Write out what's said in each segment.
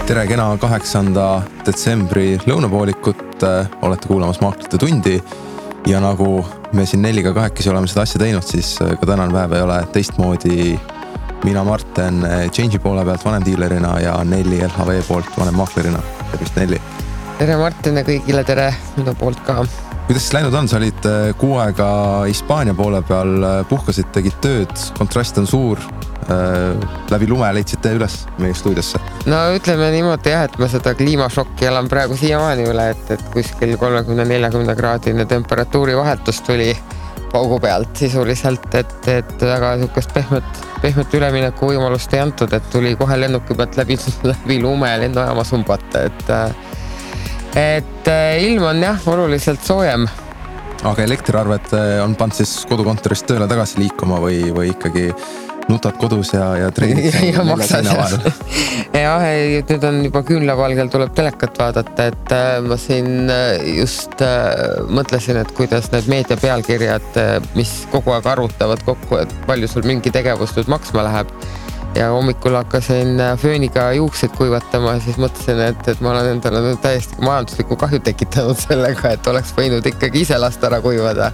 Tere kena 8. detsembri lõunapoolikut, olete kuulamas Maaklite tundi ja nagu me siin Nelliga kahekesi oleme seda asja teinud, siis ka tänane päev ei ole teistmoodi. Mina Marten Change'i poole pealt vanemdiilerina ja Nelli LHV poolt vanemmaaklerina. Tervist Nelli! Tere Martin ja kõigile tere minu poolt ka. Kuidas siis läinud on? Sa olid kuu aega Hispaania poole peal, puhkasid, tegid tööd, kontrast on suur, läbi lume leidsite üles meie stuudiosse. No ütleme niimoodi jah, et ma seda kliimašokki elan praegu siiamaani üle, et kuskil 30-40 kraadine temperatuuri vahetus tuli paugu pealt sisuliselt, et väga niisugust pehmet ülemineku võimalust ei antud, et tuli kohe lennuki pealt läbi lume ja lennujaama sumbata, et ilm on jah oluliselt soojem. Aga elektriarved on pannud siis kodukontorist tööle tagasi liikuma või ikkagi nutad kodus ja treenid? Ja maksad jah, nüüd on juba küünlavalgel tuleb telekat vaadata, et ma siin just mõtlesin, et kuidas need meedia pealkirjad, mis kogu aeg arvutavad kokku, et palju sul mingi tegevus nüüd maksma läheb. Ja hommikul hakkasin fööniga juukseid kuivatama ja siis mõtlesin, et ma olen endale nüüd täiesti majanduslikku kahju tekitanud sellega, et oleks võinud ikkagi ise last ära kuivada.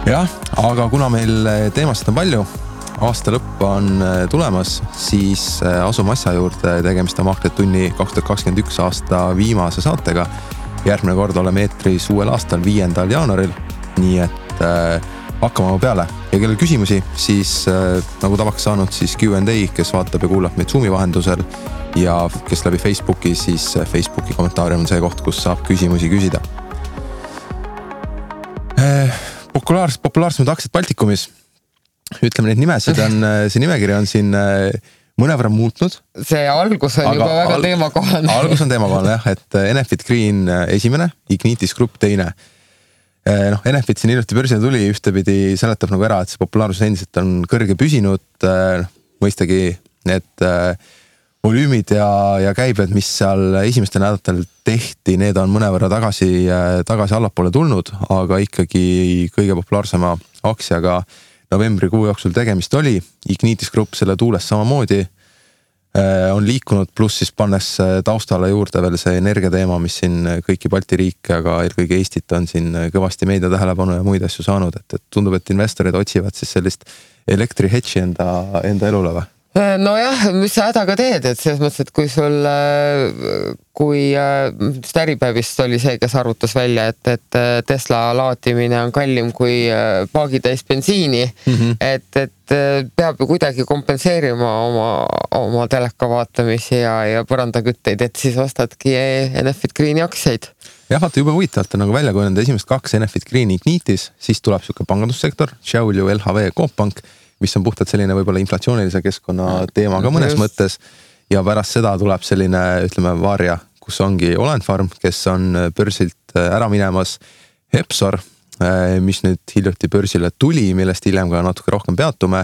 Jah, aga kuna meil teemast on palju, aasta lõpp on tulemas, siis asume asja juurde, tegemist on Maaklite tunni 2021 aasta viimase saatega. Järgmine kord oleme eetris uuel aastal 5. jaanuaril, nii et hakkame peale. Ja kellel küsimusi, siis nagu tavaks saanud, siis Q&A, kes vaatab ja kuulab meid Zoomi vahendusel ja kes läbi Facebooki, siis Facebooki kommentaarium on see koht, kus saab küsimusi küsida. Populaarsemad aktsiad Baltikumis. Ütleme neid nimesid on, see nimekiri on siin mõnevõrra muutnud. See algus on juba väga teemakohane. Algus on teemakohane jah, et Enefit Green esimene, Ignitis Group teine. Enefit siin hiljuti börsile tuli, ühtepidi seletab nagu ära, et see populaarsus endiselt on kõrge püsinud. Mõistagi need volüümid ja käibed, mis seal esimestel nädalatel tehti, need on mõnevõrra tagasi allapoole tulnud, aga ikkagi kõige populaarsema aktsiaga novembrikuu jooksul tegemist oli. Ignitis Group selle tuules samamoodi on liikunud, pluss siis pannes taustale juurde veel see energiateema, mis siin kõiki Balti riike, aga eelkõige Eestit on siin kõvasti meedia tähelepanu ja muid asju saanud, et tundub, et investorid otsivad siis sellist elektrihetši enda elule või? No jah, mis sa hädaga teed, et selles mõttes, et kui äripäevist oli see, kes arvutas välja, et Tesla laatimine on kallim kui paagitäis bensiini, et peab ju kuidagi kompenseerima oma teleka vaatamisi ja põrandakütteid, et siis ostadki Enefit Greeni aktsiaid. Jah, vaata juba huvitavalt on nagu välja kujuneda esimest 2 Enefit Greeni Ignitis, siis tuleb siuke pangandussektor, Šiauliu, LHV, Cooppank, mis on puhtalt selline võib-olla inflatsioonilise keskkonna teema ka mõnes mõttes ja pärast seda tuleb selline, ütleme, varja, kus ongi Olenfarm, kes on börsilt ära minemas, Hepsor, mis nüüd hiljuti börsile tuli, millest hiljem ka natuke rohkem peatume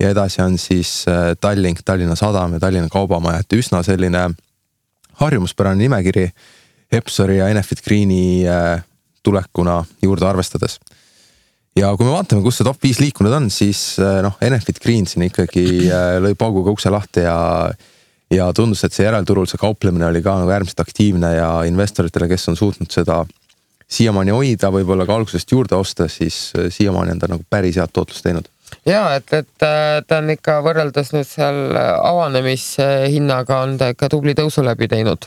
ja edasi on siis Tallink, Tallinna Sadam ja Tallinna Kaubamaja, et üsna selline harjumuspärane nimekiri Hepsori ja Enefit Greeni tulekuna juurde arvestades. Ja kui me vaatame, kus see top 5 liikunud on, siis Enefit Green siin ikkagi lõi pauguga ukse lahti ja tundus, et see järelturul see kauplemine oli ka nagu äärmiselt aktiivne ja investoritele, kes on suutnud seda siiamaani hoida, võib-olla ka algusest juurde osta, siis siiamaani on ta nagu päris head tootlust teinud. Jaa, et ta on ikka võrreldes nüüd seal avanemishinnaga on ta ikka tubli tõusu läbi teinud.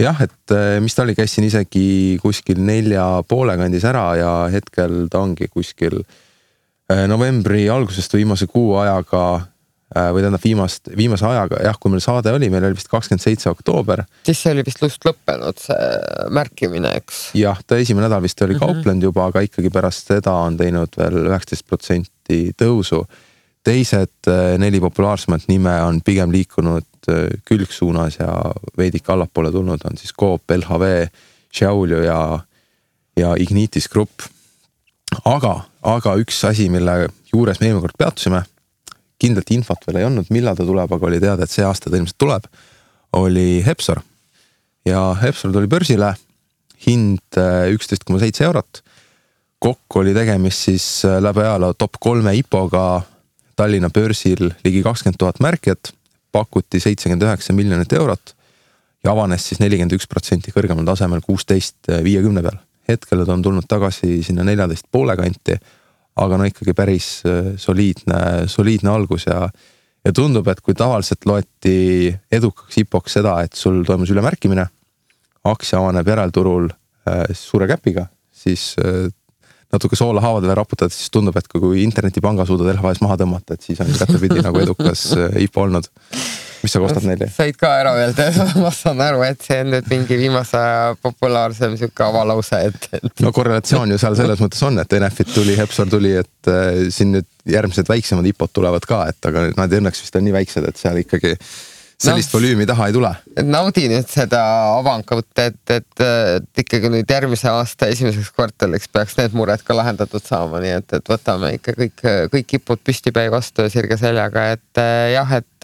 Jah, et mis ta oli, käisin isegi kuskil 4,5 kandis ära ja hetkel ta ongi kuskil novembri algusest viimase kuu ajaga või tähendab viimase ajaga, jah, kui meil saade oli, meil oli vist 27. oktoober. Siis see oli vist just lõppenud see märkimine, eks? Jah, ta esimene nädal vist oli kauplenud juba, aga ikkagi pärast seda on teinud veel 19% tõusu. Teised 4 populaarsemat nime on pigem liikunud külgsuunas ja veidik allapoole tulnud on siis Coop, LHV, Šiauliu ja Ignitis Group. Aga üks asi, mille juures me eelmine kord peatusime, kindlalt infot veel ei olnud, millal ta tuleb, aga oli teada, et see aasta ta ilmselt tuleb, oli Hepsor. Ja Hepsor tuli börsile, hind 11,7 eurot. Kokku oli tegemist siis läbi ajaloo top 3 IPO-ga Tallinna börsil ligi 20 000 märkijat, pakuti 79 miljonit eurot ja avanes siis 41% kõrgemal tasemel 16.50 peal. Hetkel on tulnud tagasi sinna 14,5 kanti, aga no ikkagi päris soliidne algus ja tundub, et kui tavaliselt loeti edukaks IPO-ks seda, et sul toimus ülemärkimine, aktsia avaneb järelturul suure käpiga, siis natuke soola haavadele raputad, siis tundub, et kui internetipanga suudad LHV-s maha tõmmata, et siis on kättepidi nagu edukas IPO olnud. Mis sa kostad neile? Said ka ära öelda, ma saan aru, et see on nüüd mingi viimase populaarsem siuke avalause, et... No korrelatsioon ju seal selles mõttes on, et NF-it tuli, Hepsor tuli, et siin nüüd järgmised väiksemad IPO-d tulevad ka, et aga nad õnneks vist on nii väiksed, et seal ikkagi sellist volüümi taha ei tule. Naudi nüüd seda avangut, et ikkagi nüüd järgmise aasta esimeseks kvartaliks peaks need mured ka lahendatud saama, nii et võtame ikka kõik IPO-d püstipäi vastu ja sirge seljaga, et jah, et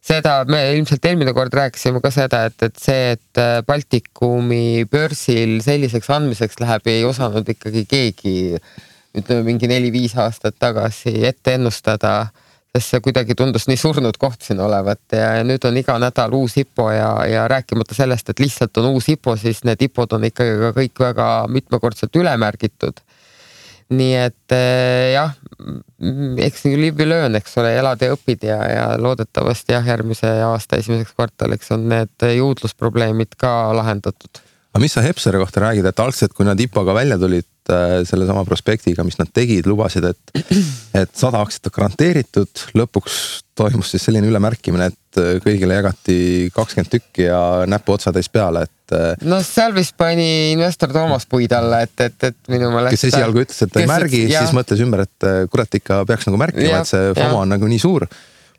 seda me ilmselt eelmine kord rääkisime ka seda, et see, et Baltikumi börsil selliseks andmiseks läheb, ei osanud ikkagi keegi, ütleme mingi 4-5 aastat tagasi ette ennustada, sest see kuidagi tundus nii surnud koht siin olevat ja nüüd on iga nädal uus IPO ja rääkimata sellest, et lihtsalt on uus IPO, siis need IPO-d on ikkagi ka kõik väga mitmekordselt ülemärgitud. Nii et jah, eks nii liiv löön, eks ole, elad ja õpid ja loodetavasti jah, järgmise aasta esimeseks kvartaliks on need juudlusprobleemid ka lahendatud. Aga mis sa Hepsori kohta räägid, et algselt, kui nad IPO-ga välja tulid selle sama prospektiga, mis nad tegid, lubasid, et 100 aktsiat on garanteeritud, lõpuks toimus siis selline ülemärkimine, et kõigile jagati 20 tükki ja näpu otsatäis peale, et... No seal vist pani investor Toomas puid alla, et minu meelest... Kes esialgu ütles, et ta ei märgi, siis mõtles ümber, et kurat ikka peaks nagu märkima, et see FOMO on nagu nii suur.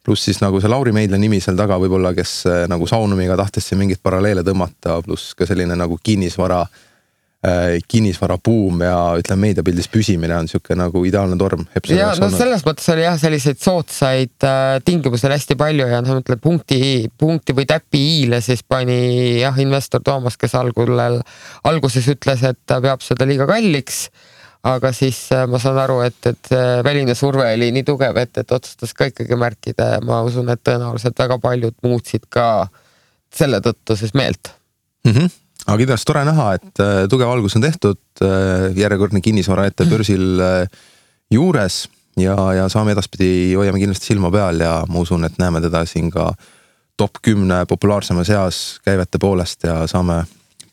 Pluss siis nagu see Lauri Meidla nimi seal taga võib-olla, kes nagu Saunumiga tahtis siin mingit paralleele tõmmata, pluss ka selline nagu kinnisvara buum ja ütleme meediapildis püsimine on siuke nagu ideaalne torm. Ja no selles mõttes oli jah selliseid sootsaid tingimusel hästi palju ja mõtled punkti või täpi iile siis pani jah investor Toomas, kes alguses ütles, et ta peab seda liiga kalliks, aga siis ma saan aru, et väline surve oli nii tugev, et otsustas ka ikkagi märkida ja ma usun, et tõenäoliselt väga paljud muutsid ka selle tõttu siis meelt. Aga ideas tore näha, et tugev algus on tehtud, järjekordne kinnisvara ette börsil juures ja saame edaspidi hoiame kindlasti silma peal ja ma usun, et näeme teda siin ka top 10 populaarsema seas käivete poolest ja saame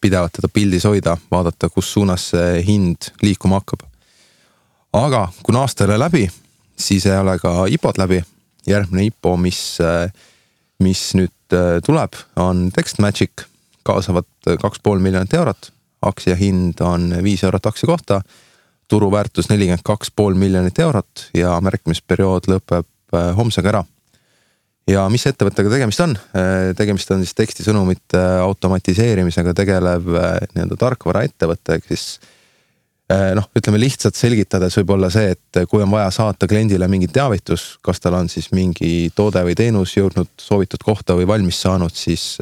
pidevalt teda pildis hoida, vaadata, kus suunas see hind liikuma hakkab. Aga kuna aasta ei ole läbi, siis ei ole ka IPO-d läbi. Järgmine IPO, mis nüüd tuleb, on TextMagic, kaasavad 2,5 miljonit eurot, aktsia hind on 5 eurot aktsia kohta, turuväärtus 42,5 miljonit eurot ja märkimisperiood lõpeb homsega ära. Ja mis ettevõttega tegemist on? Tegemist on siis tekstisõnumite automatiseerimisega tegelev nii-öelda tarkvara ettevõte, siis ütleme lihtsalt selgitades võib olla see, et kui on vaja saata kliendile mingi teavitus, kas tal on siis mingi toode või teenus jõudnud soovitud kohta või valmis saanud, siis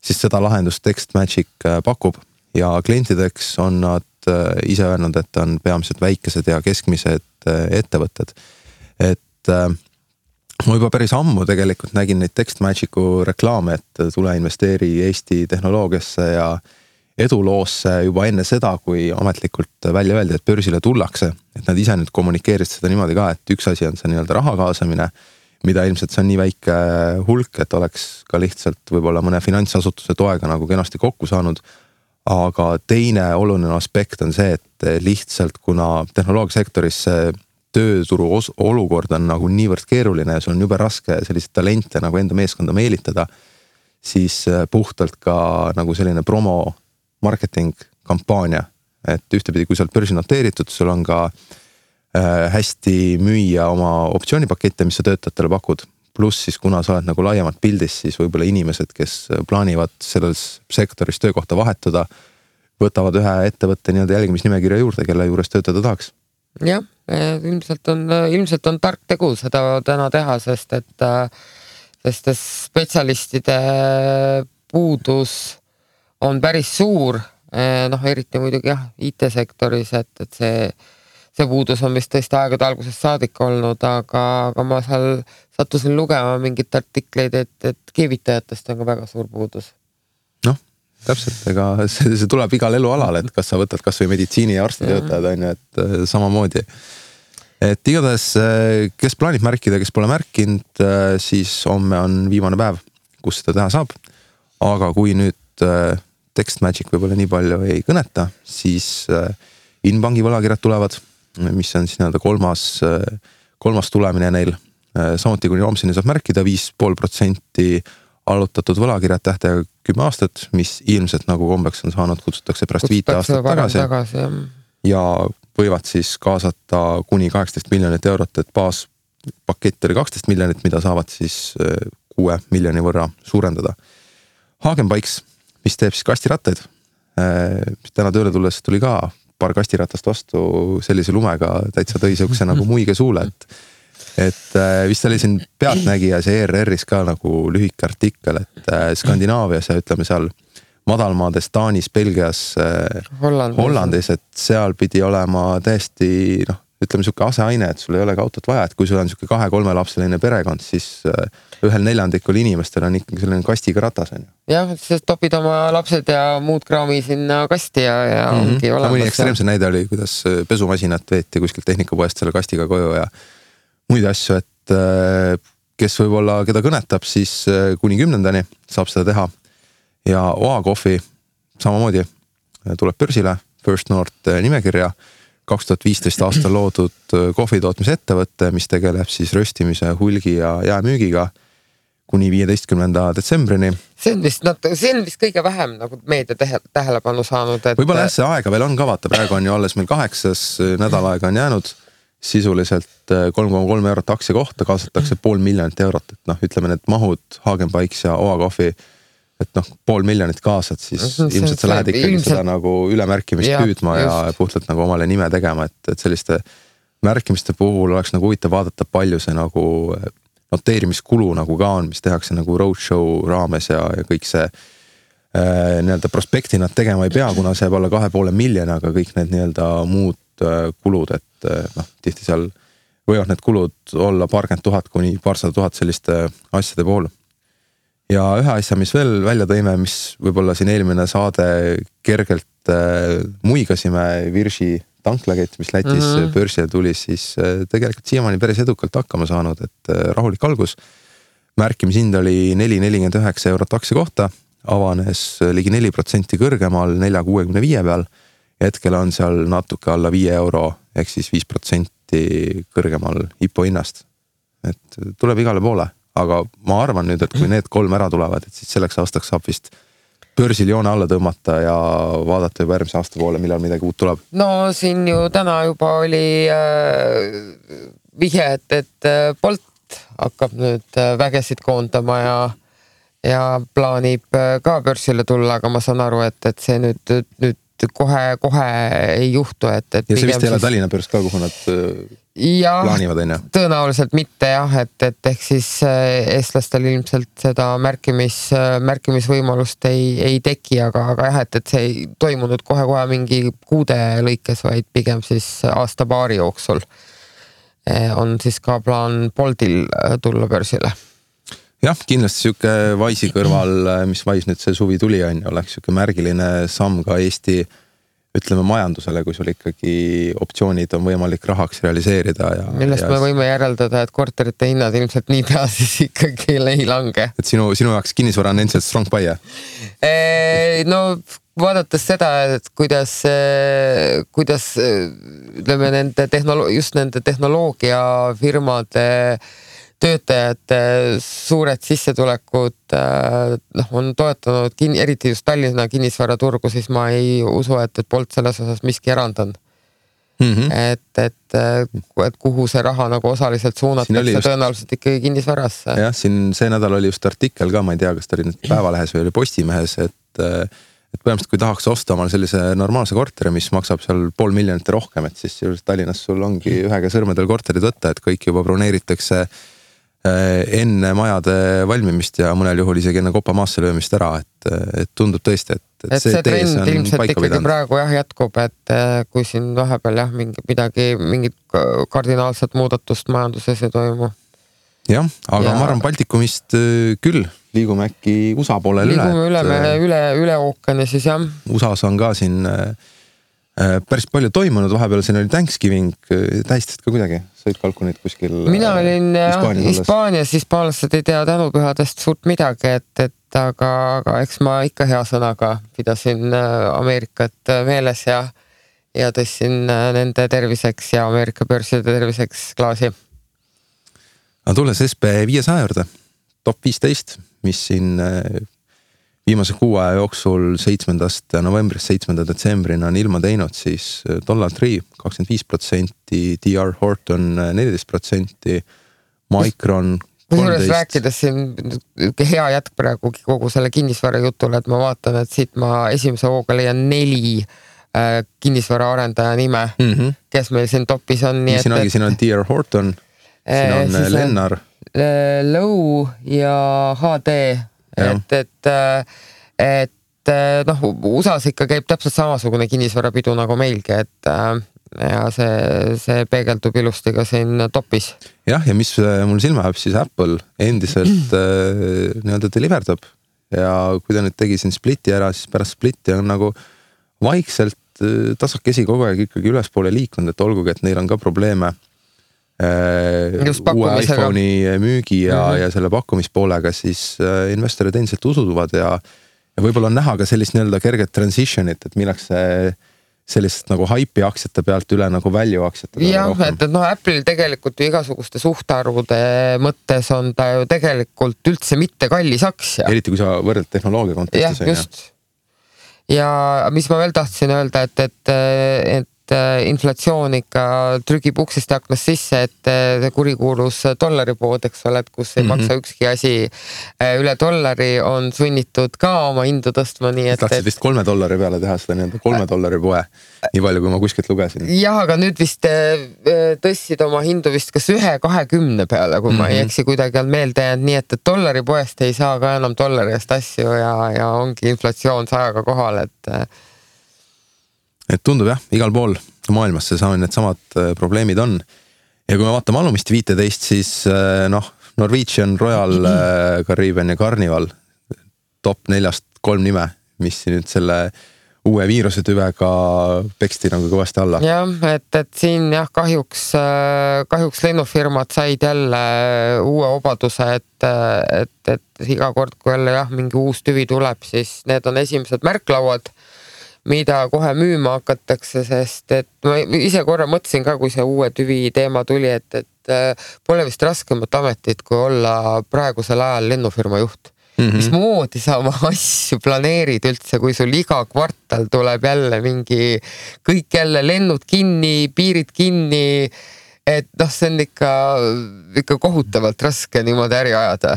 seda lahendust TextMagic pakub ja klientideks on nad ise öelnud, et on peamiselt väikesed ja keskmised ettevõtted. Et ma juba päris ammu tegelikult nägin neid TextMagicu reklaame, et tule investeeri Eesti tehnoloogiasse ja eduloosse juba enne seda, kui ametlikult välja öeldi, et börsile tullakse. Et nad ise nüüd kommunikeerisid seda niimoodi ka, et üks asi on see nii-öelda raha kaasamine, mida ilmselt see on nii väike hulk, et oleks ka lihtsalt võib-olla mõne finantsasutuse toega nagu kenasti kokku saanud. Aga teine oluline aspekt on see, et lihtsalt kuna tehnoloogiasektoris tööturu olukord on nagu niivõrd keeruline ja sul on jube raske selliseid talente nagu enda meeskonda meelitada, siis puhtalt ka nagu selline promo marketing kampaania, et ühtepidi, kui sa oled börsi noteeritud, sul on ka hästi müüa oma optsioonipakette, mis sa töötajatele pakud. Pluss siis, kuna sa oled nagu laiemalt pildis, siis võib-olla inimesed, kes plaanivad selles sektoris töökohta vahetada, võtavad ühe ettevõtte nii-öelda jälgimisnimekirja juurde, kelle juures töötada tahaks. Jah, ilmselt on tark tegu seda täna teha, sest spetsialistide puudus on päris suur, eriti muidugi jah, IT-sektoris, et see puudus on vist tõesti aegade algusest saadik olnud, aga ma seal sattusin lugema mingit artikleid, et keevitajatest on ka väga suur puudus. Noh, täpselt, ega see tuleb igal elualal, et kas sa võtad kas või meditsiini ja arstitöötajad on ju, et samamoodi. Et igatahes, kes plaanib märkida, kes pole märkinud, siis homme on viimane päev, kus seda teha saab. Aga kui nüüd Text Magic võib-olla nii palju ei kõneta, siis Inbanki võlakirjad tulevad, mis on siis nii-öelda kolmas tulemine neil. Samuti kuni homseni saab märkida 5,5% allutatud võlakirjad tähtega 10 aastat, mis ilmselt nagu kombeks on saanud, kutsutakse pärast 5 aastat tagasi ja võivad siis kaasata kuni 18 miljonit eurot, et baaspakett oli 12 miljonit, mida saavad siis 6 miljoni võrra suurendada. Hagenbikes, mis teeb siis kastirattaid, täna tööle tulles tuli ka paar kastiratast vastu sellise lumega, täitsa tõi siukse nagu muige suule, et vist oli siin Pealtnägijas ja ERR-is ka nagu lühike artikkel, et Skandinaavias ja ütleme seal madalmaades, Taanis, Belgias, Hollandis, et seal pidi olema täiesti, ütleme siuke aseaine, et sul ei ole ka autot vaja, et kui sul on siuke 2-3 lapseline perekond, siis ühel 4% inimestel on ikkagi selline kastiga ratas. Jah, siis topid oma lapsed ja muud kraami sinna kasti ja ongi olemas. Mõni ekstreemse näide oli, kuidas pesumasinat veeti kuskilt tehnikapoest selle kastiga koju ja muid asju, et kes võib-olla, keda kõnetab, siis kuni 10. saab seda teha. Ja OA Coffee samamoodi tuleb börsile, First North nimekirja, 2015 aastal loodud kohvitootmise ettevõtte, mis tegeleb siis röstimise, hulgi ja jäämüügiga kuni 15. detsembrini. See on vist kõige vähem nagu meedia tähelepanu saanud. Et võib-olla see aega veel on ka, vaata, praegu on ju alles meil 8. nädalaega on jäänud sisuliselt 3,3 eurot aktsia kohta, kaasatakse 500 000 eurot, et ütleme need mahud Hagenbikes ja OA Coffee, et 500 000 kaasad, siis ilmselt sa lähed ikkagi seda nagu ülemärkimist püüdma ja puhtalt nagu omale nime tegema, et selliste märkimiste puhul oleks nagu huvitav vaadata, palju see nagu noteerimiskulu nagu ka on, mis tehakse nagu roadshow raames ja kõik see nii-öelda prospekti nad tegema ei pea, kuna see jääb alla 2,5 miljoni, aga kõik need nii-öelda muud kulud, et tihti seal võivad need kulud olla paarkümmend tuhat kuni paarsada tuhat selliste asjade puhul. Ja ühe asja, mis veel välja tõime, mis võib-olla siin eelmine saade kergelt muigasime Virši tanklakett, mis Lätis börsile tuli, siis tegelikult siiamaani päris edukalt hakkama saanud, et rahulik algus. Märkimishind oli 4,49 eurot aktsia kohta, avanes ligi 4% kõrgemal 4,65 peal. Hetkel on seal natuke alla 5 euro, ehk siis 5% kõrgemal IPO hinnast. Et tuleb igale poole. Aga ma arvan nüüd, et kui need 3 ära tulevad, et siis selleks aastaks saab vist börsil joone alla tõmmata ja vaadata juba järgmise aasta poole, millal midagi uut tuleb. No siin ju täna juba oli vihje, et Bolt hakkab nüüd vägesid koondama ja plaanib ka börsile tulla, aga ma saan aru, et see nüüd kohe ei juhtu. Ja see vist ei ole Tallinna börs ka, kuhu nad plaanivad, on ju? Tõenäoliselt mitte jah, et ehk siis eestlastel ilmselt seda märkimisvõimalust ei teki, aga jah, et see ei toimunud kohe mingi kuude lõikes, vaid pigem siis aasta-paari jooksul on siis ka plaan Boltil tulla börsile. Jah, kindlasti siuke Wise'i kõrval, mis Wise nüüd see suvi tuli on, oleks siuke märgiline samm ka Eesti ütleme majandusele, kui sul ikkagi optsioonid on võimalik rahaks realiseerida. Millest me võime järeldada, et korterite hinnad ilmselt nii pea siis ikkagi ei lange. Et sinu jaoks kinnisvara on endiselt strong buy? No vaadates seda, et kuidas ütleme just nende tehnoloogiafirmade töötajate suured sissetulekud on toetanud eriti just Tallinna kinnisvaraturgu, siis ma ei usu, et Bolt selles osas miski erand on. Et kuhu see raha nagu osaliselt suunatakse tõenäoliselt ikkagi kinnisvarasse. Jah, siin see nädal oli just artikkel ka, ma ei tea, kas ta oli nüüd Päevalehes või oli Postimehes, et põhimõtteliselt kui tahaks osta omal sellise normaalse korteri, mis maksab seal 500 000 rohkem, et siis Tallinnas sul ongi ühega sõrmedel korterid võtta, et kõik juba broneeritakse enne majade valmimist ja mõnel juhul isegi enne kopa maasse löömist ära, et tundub tõesti, et et see trend ilmselt ikkagi praegu jätkub, et kui siin vahepeal mingid kardinaalset muudatust majanduses ei toimu. Jah, aga ma arvan Baltikumist küll liigume äkki USA poolel üle ookeani siis jah. USAs on ka siin päris palju toimunud, vahepeal siin oli Thanksgiving, tähistad ka kuidagi, sõid kalkunid kuskil? Mina olin Hispaanias, hispaanlased ei tea tänupühadest suurt midagi, et aga eks ma ikka hea sõnaga pidasin Ameerikat meeles ja tõssin nende terviseks ja Ameerika börside terviseks klaasi. Aga tulles SB 500 juurde, top 15, mis siin viimase 6 aja jooksul 7. novembrist 7. detsembrini on ilma teinud, siis $3 25%, DR Horton 14%, Micron 13%. Rääkides siin hea jätk praegu kogu selle kinnisvara jutule, et ma vaatan, et siit ma esimese hooga leian 4 kinnisvara arendaja nime, kes meil siin topis on. Siin on DR Horton, siin on Lennar. Low ja HD. Et USAs ikka käib täpselt samasugune kinnisvarapidu nagu meilgi, et ja see peegeldub ilusti ka siin topis. Jah, ja mis mul silma jääb, siis Apple endiselt nii-öelda deliverdab ja kui ta nüüd tegi siin splitti ära, siis pärast splitti on nagu vaikselt tasakesi kogu aeg ikkagi ülespoole liikunud, et olgugi, et neil on ka probleeme uue iPhone'i müügi ja selle pakkumispoolega, siis investorid endiselt usuvad ja võib-olla on näha ka sellist nii-öelda kerget transitionit, et milleks sellist nagu hype'i aktsiate pealt üle nagu value aktsiate peale rohkem. Jah, et Apple'il tegelikult ju igasuguste suhtarvude mõttes on ta ju tegelikult üldse mitte kallis aktsia. Eriti kui sa võrdled tehnoloogia kontekstis. Jah, just. Ja mis ma veel tahtsin öelda, et inflatsioon ikka trügib uksest ja aknast sisse, et see kurikuulus dollaripood, eks ole, et kus ei maksa ükski asi üle $1 on sunnitud ka oma hindu tõstma. Tahtsid vist $3 peale teha seda nii-öelda $3 poe, nii palju kui ma kuskilt lugesin. Jah, aga nüüd vist tõstsid oma hindu vist kas 1.20 peale, kui ma ei eksi kuidagi on meelde jäänud, nii et $poest ei saa ka enam $1 eest asju ja ongi inflatsioon 100 kohal, et tundub jah, igal pool maailmas need samad probleemid on. Ja kui me vaatame alumist 15, siis Norwegian, Royal Caribbean ja Carnival top 4-st 3 nime, mis nüüd selle uue viirusetüvega peksti nagu kõvasti alla. Jah, et siin jah, kahjuks lennufirmad said jälle uue obaduse, et iga kord, kui jälle mingi uus tüvi tuleb, siis need on esimesed märklauad, mida kohe müüma hakatakse, sest et ma ise korra mõtlesin ka, kui see uue tüvi teema tuli, et pole vist raskemat ametit, kui olla praegusel ajal lennufirma juht. Mismoodi sa oma asju planeerid üldse, kui sul iga kvartal tuleb jälle mingi kõik jälle lennud kinni, piirid kinni, et see on ikka kohutavalt raske niimoodi äri ajada.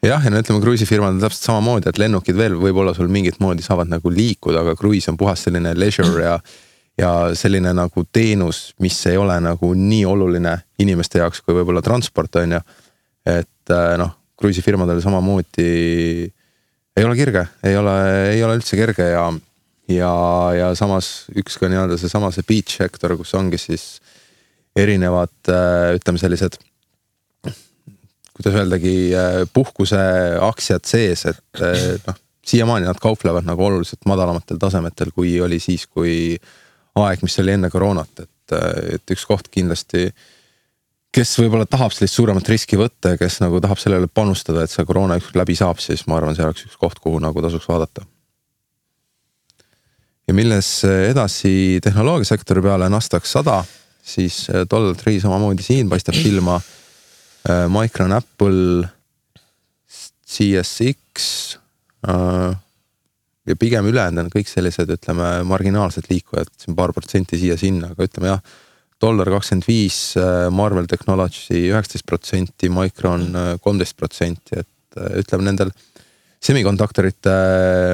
Jah, ja ütleme, kruiisifirmad on täpselt samamoodi, et lennukid veel võib-olla sul mingit moodi saavad nagu liikuda, aga kruiis on puhas selline leisure ja selline nagu teenus, mis ei ole nagu nii oluline inimeste jaoks, kui võib-olla transport on ju. Et kruiisifirmadel samamoodi ei ole kirge, ei ole üldse kerge ja samas üks ka nii-öelda see beach sektor, kus ongi siis erinevad, ütleme sellised kuidas öeldagi, puhkuse aktsiad sees, et siiamaani nad kauplevad nagu oluliselt madalamatel tasemetel, kui oli siis, kui aeg, mis oli enne koroonat, et üks koht kindlasti, kes võib-olla tahab sellist suuremat riski võtta ja kes nagu tahab sellele panustada, et see koroona ükskord läbi saab, siis ma arvan, see oleks üks koht, kuhu nagu tasuks vaadata. Ja milles edasi tehnoloogiasektori peale Nasdaq 100, siis $3 samamoodi siin paistab silma Micron, Apple, CSX ja pigem ülejäänud on kõik sellised, ütleme, marginaalsed liikujad, siin paar protsenti siia-sinna, aga ütleme jah, $25, Marvell Technology 19%, Micron 13%, et ütleme nendel semikonduktorite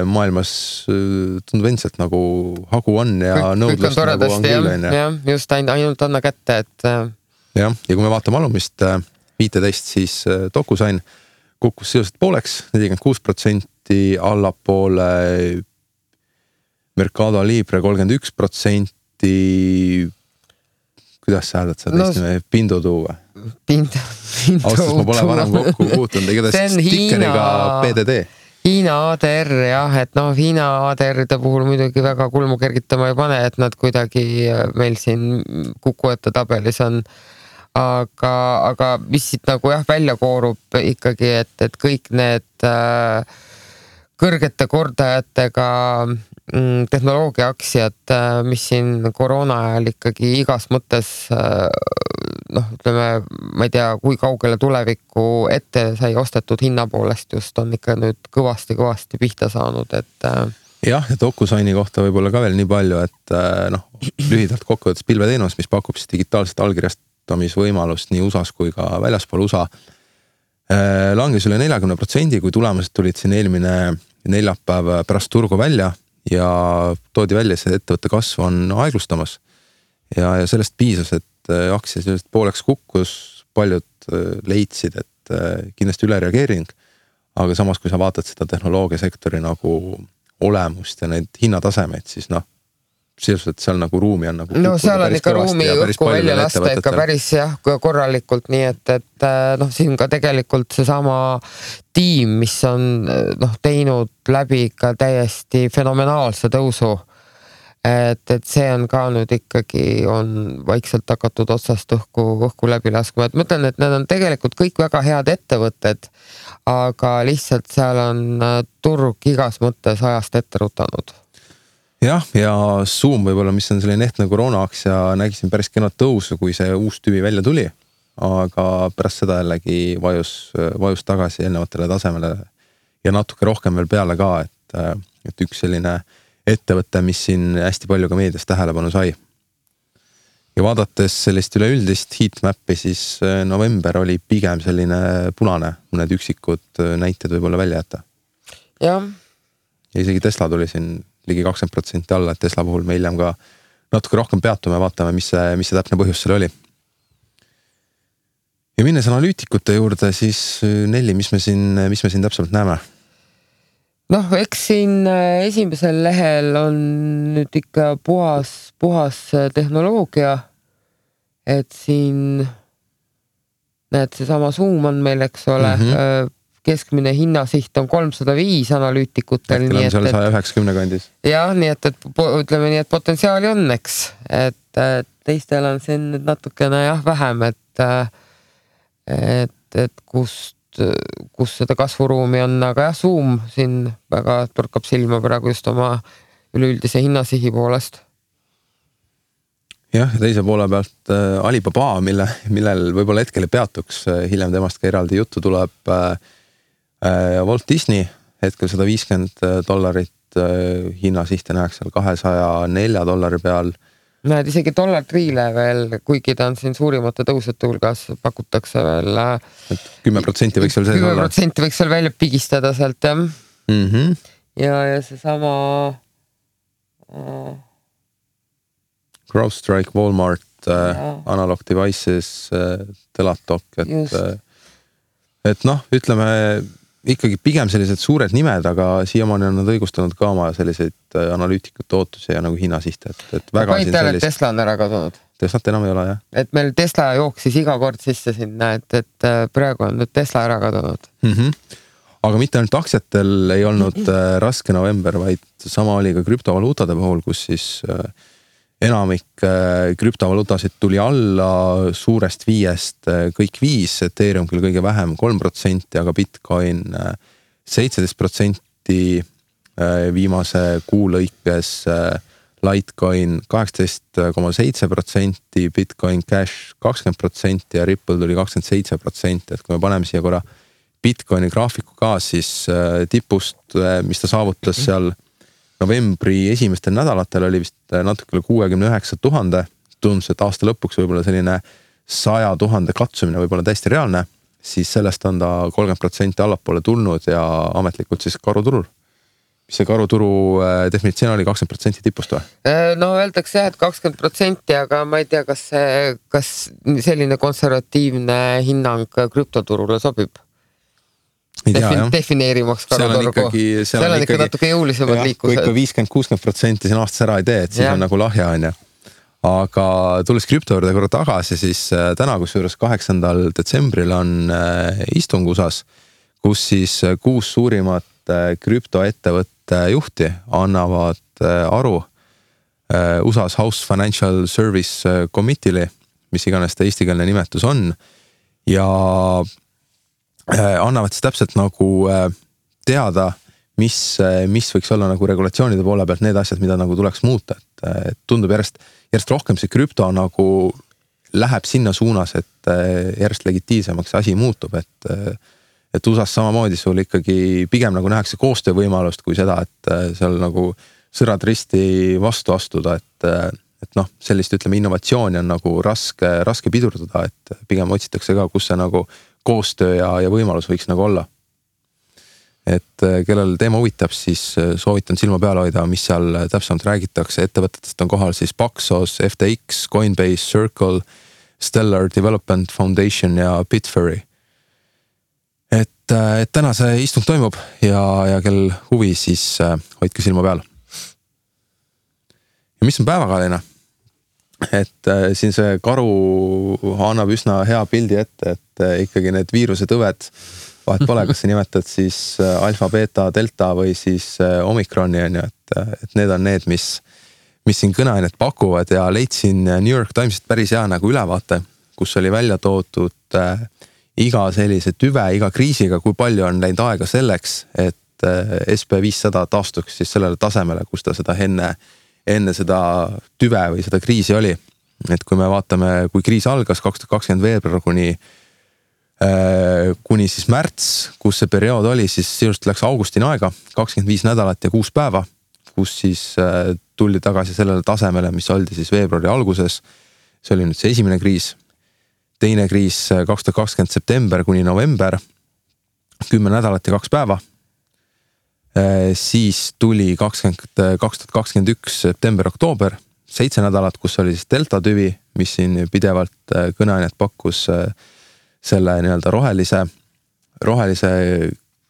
maailmas tundub endiselt nagu hagu on ja nõudlust nagu on küll. Jah, just ainult anna kätte, et jah, ja kui me vaatame alumist 15, siis DocuSign kukkus sisuliselt pooleks, 46% allapoole Mercado Libre 31%. Kuidas sa hääldad seda teist nime? Pindutuu või? Austas ma pole varem kokku puutunud, igatahes stikkeriga PDD. Hiina ADR jah, et Hiina ADR-ide puhul muidugi väga kulmu kergitama ei pane, et nad kuidagi meil siin kukuete tabelis on. Aga mis siit nagu välja koorub ikkagi, et kõik need kõrgete kordajatega tehnoloogia aktsiad, mis siin koroona ajal ikkagi igas mõttes ütleme, ma ei tea, kui kaugele tulevikku ette sai ostetud hinna poolest just on ikka nüüd kõvasti pihta saanud, et jah, ja DocuSigni kohta võib-olla ka veel nii palju, et lühidalt kokkuvõttes pilveteenus, mis pakub siis digitaalset allkirjastamisvõimalust nii USAs kui ka väljaspool USA, langes üle 40%, kui tulemused tulid siin eelmine neljapäev pärast turgu välja ja toodi välja, see ettevõtte kasv on aeglustamas ja sellest piisas, et aktsia sellest pooleks kukkus, paljud leidsid, et kindlasti ülereageering, aga samas kui sa vaatad seda tehnoloogiasektori nagu olemust ja neid hinnatasemeid, siis sisuliselt seal nagu ruumi on nagu seal on ikka ruumi õhku välja lasta ikka päris korralikult, nii et siin ka tegelikult seesama tiim, mis on teinud läbi ikka täiesti fenomenaalse tõusu, et see on ka nüüd ikkagi on vaikselt hakatud otsast õhku läbi laskma, et ma ütlen, et need on tegelikult kõik väga head ettevõtted, aga lihtsalt seal on turg igas mõttes ajast ette rutanud. Jah, ja Zoom võib-olla, mis on selline ehtne koroonaaktsia, nägisin päris kenad tõusu, kui see uus tüvi välja tuli, aga pärast seda jällegi vajus tagasi eelnevatele tasemele ja natuke rohkem veel peale ka, et üks selline ettevõte, mis siin hästi palju ka meedias tähelepanu sai. Ja vaadates sellist üleüldist heatmappi, siis november oli pigem selline punane, mõned üksikud näited võib-olla välja jätta. Jah. Ja isegi Tesla tuli siin ligi 20% alla, et Tesla puhul me hiljem ka natuke rohkem peatume ja vaatame, mis see täpne põhjus seal oli. Ja minnes analüütikute juurde, siis Nelli, mis me siin täpselt näeme? Eks siin esimesel lehel on nüüd ikka puhas tehnoloogia, et siin näed, seesama Zoom on meil, eks ole, keskmine hinnasiht on 305 analüütikutel. Äkki seal 190 kandis. Jah, nii et ütleme nii, et potentsiaali on, eks. Et teistel on siin natukene vähem, et kus seda kasvuruumi on, aga Zoom siin väga torkab silma praegu just oma üleüldise hinnasihi poolest. Jah, ja teise poole pealt Alibaba, millel võib-olla hetkel peatuks, hiljem temast ka eraldi juttu tuleb Walt Disney, hetkel $150 hinnasihte näeks seal $204 peal. Näed, isegi $3 veel, kuigi ta on siin suurimate tõusete hulgas, pakutakse veel 10% võiks veel sees olla. 10% võiks veel välja pigistada sealt, jah. Ja seesama CrowdStrike, Walmart, Analog Devices, Teladoc, et ütleme ikkagi pigem sellised suured nimed, aga siiamaani on nad õigustanud ka oma selliseid analüütikute ootusi ja nagu hinnasihte, et väga siin sellist... Tesla on ära kadunud. Teslat enam ei ole, jah. Et meil Tesla jooksis iga kord sisse sinna, et praegu on nüüd Tesla ära kadunud. Aga mitte ainult aktsiatel ei olnud raske november, vaid sama oli ka krüptovaluutade puhul, kus siis enamik krüptovaluutasid tuli alla suurest 5, kõik 5, Ethereum küll kõige vähem 3%, aga Bitcoin 17% viimase kuu lõikes, Litecoin 18,7%, Bitcoin Cash 20% ja Ripple tuli 27%, et kui me paneme siia korra Bitcoini graafiku ka, siis tipust, mis ta saavutas seal novembri esimestel nädalatel oli vist natukele 69 000, tundus, et aasta lõpuks võib-olla selline 100 000 katsumine võib-olla täiesti reaalne, siis sellest on ta 30% allapoole tulnud ja ametlikult siis karuturul. Mis see karuturu definitsioon oli 20% tipust või? Öeldakse jah, et 20%, aga ma ei tea, kas selline konservatiivne hinnang krüptoturule sobib. defineerimaks karuturgu. Seal on ikka natuke jõulisemad liikused. Kui ikka 50-60% siin aastas ära ei tee, et siis on nagu lahja, on ju. Aga tulles krüpto juurde korra tagasi, siis täna kusjuures 8. detsembril on istung USAs, kus siis 6 suurimat krüptoettevõtte juhti annavad aru USAs House Financial Service Committee'li, mis iganes ta eestikeelne nimetus on, ja annavad siis täpselt nagu teada, mis võiks olla nagu regulatsioonide poole pealt need asjad, mida nagu tuleks muuta. Et tundub järjest rohkem see krüpto nagu läheb sinna suunas, et järjest legitiivsemaks asi muutub, et USAs samamoodi sul ikkagi pigem nagu nähakse koostöövõimalust kui seda, et seal nagu sõrad risti vastu astuda, et noh, sellist ütleme innovatsiooni on nagu raske pidurdada, et pigem otsitakse ka, kus see nagu koostöö ja võimalus võiks nagu olla. Et kellel teema huvitab, siis soovitan silma peale hoida, mis seal täpsemalt räägitakse. Ettevõtetest on kohal siis Paxos, FTX, Coinbase, Circle, Stellar Development Foundation ja Bitfury. Et täna see istung toimub ja kel huvi, siis hoidke silma peal. Ja mis on päevakajaline? Et siin see karu annab üsna hea pildi ette, et ikkagi need viiruse tõved, vahet pole, kas sa nimetad siis alfa, beta, delta või siis omikroni, on ju, et need on need, mis siin kõneainet pakuvad ja leidsin New York Timesist päris hea nagu ülevaate, kus oli välja toodud iga sellise tüve, iga kriisiga, kui palju on läinud aega selleks, et SP500 taastuks siis sellele tasemele, kus ta seda enne seda tüve või seda kriisi oli. Et kui me vaatame, kui kriis algas 2020 veebruar kuni siis märts, kus see periood oli, siis just läks augustini aega, 25 nädalat ja 6 päeva, kus siis tuldi tagasi sellele tasemele, mis oldi siis veebruari alguses. See oli nüüd see esimene kriis. Teine kriis 2020 september kuni november, 10 nädalat ja 2 päeva. Siis tuli 2021 september-oktoober, 7 nädalat, kus oli siis delta tüvi, mis siin pidevalt kõneainet pakkus selle nii-öelda rohelise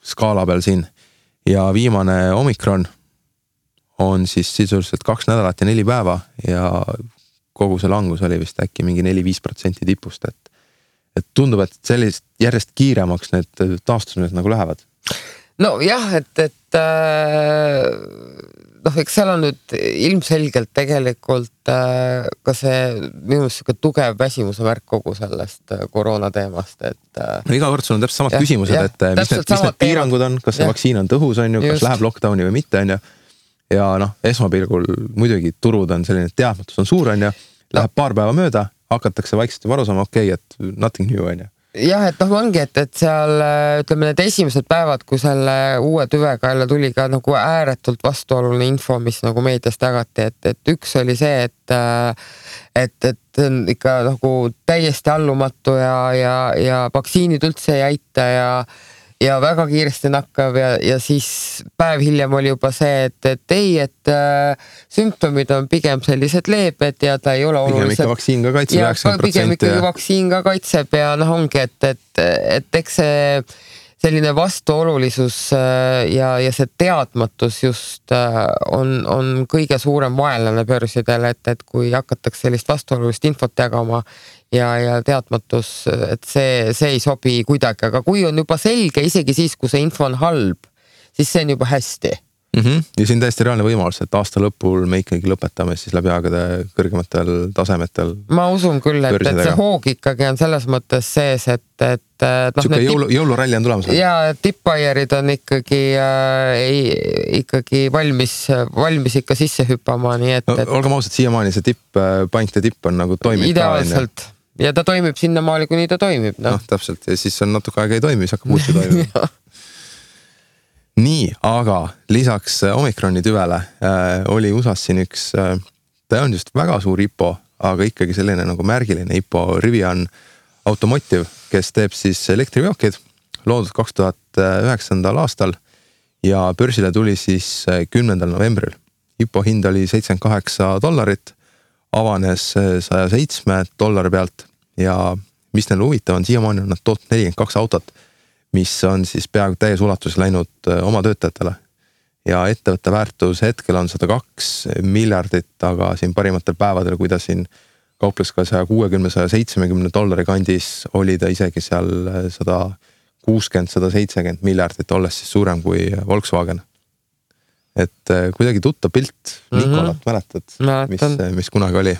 skaala peal siin. Ja viimane omikron on siis sisuliselt 2 nädalat ja 4 päeva ja kogu see langus oli vist äkki mingi 4-5% tipust, et tundub, et sellist järjest kiiremaks need taastused nagu lähevad. No jah, et eks seal on nüüd ilmselgelt tegelikult ka see minu meelest tugev väsimuse märk kogu sellest koroona teemast, et no iga kord sul on täpselt samad küsimused, et mis need piirangud on, kas see vaktsiin on tõhus, on ju, kas läheb lockdowni või mitte, on ju. Ja esmapilgul muidugi turud on selline, teadmatus on suur, on ju, läheb paar päeva mööda, hakatakse vaikselt juba aru saama, okei, et nothing new, on ju. Jah, et ongi, et seal ütleme need esimesed päevad, kui selle uue tüvega jälle tuli ka nagu ääretult vastuoluline info, mis nagu meediast jagati, et üks oli see, et on ikka nagu täiesti allumatu ja vaktsiinid üldse ei aita ja väga kiiresti nakkav ja siis päev hiljem oli juba see, et sümptomid on pigem sellised leebed ja ta ei ole olulised. Pigem ikka vaktsiin ka kaitseb 90%. Pigem ikkagi vaktsiin ka kaitseb ja ongi, et eks see selline vastuolulisus ja see teadmatus just on kõige suurem vaenlane börsidel, et kui hakatakse sellist vastuolulist infot jagama ja teadmatus, et see ei sobi kuidagi, aga kui on juba selge, isegi siis, kui see info on halb, siis see on juba hästi. Ja siin täiesti reaalne võimalus, et aasta lõpul me ikkagi lõpetame siis läbi aegade kõrgematel tasemetel. Ma usun küll, et see hoog ikkagi on selles mõttes sees, et Suke jõuluralli on tulemas. Ja tippbaierid on ikkagi valmis ikka sisse hüppama, nii et olgem ausad, siiamaani see pankte tipp on nagu toimib ideaalselt. Ja ta toimib sinnamaali, kuni ta toimib. Täpselt, ja siis on natuke aega ei toimi, siis hakkab muudki toimima. Nii, aga lisaks omikroni tüvele oli USAs siin üks, ta on just väga suur IPO, aga ikkagi selline nagu märgiline IPO, Rivian Automotive, kes teeb siis elektriveokid, loodud 2009. aastal ja börsile tuli siis 10. novembril. IPO hind oli $78, avanes $107 pealt ja mis neil huvitav on, siiamaani on nad tootnud 42 autot, mis on siis peaaegu täies ulatuses läinud oma töötajatele. Ja ettevõtte väärtus hetkel on 102 miljardit, aga siin parimatel päevadel, kui ta siin kauples ka $160–170 kandis, oli ta isegi seal 160–170 miljardit, olles siis suurem kui Volkswagen. Et kuidagi tuttav pilt, Nikolat mäletad, mis kunagi oli.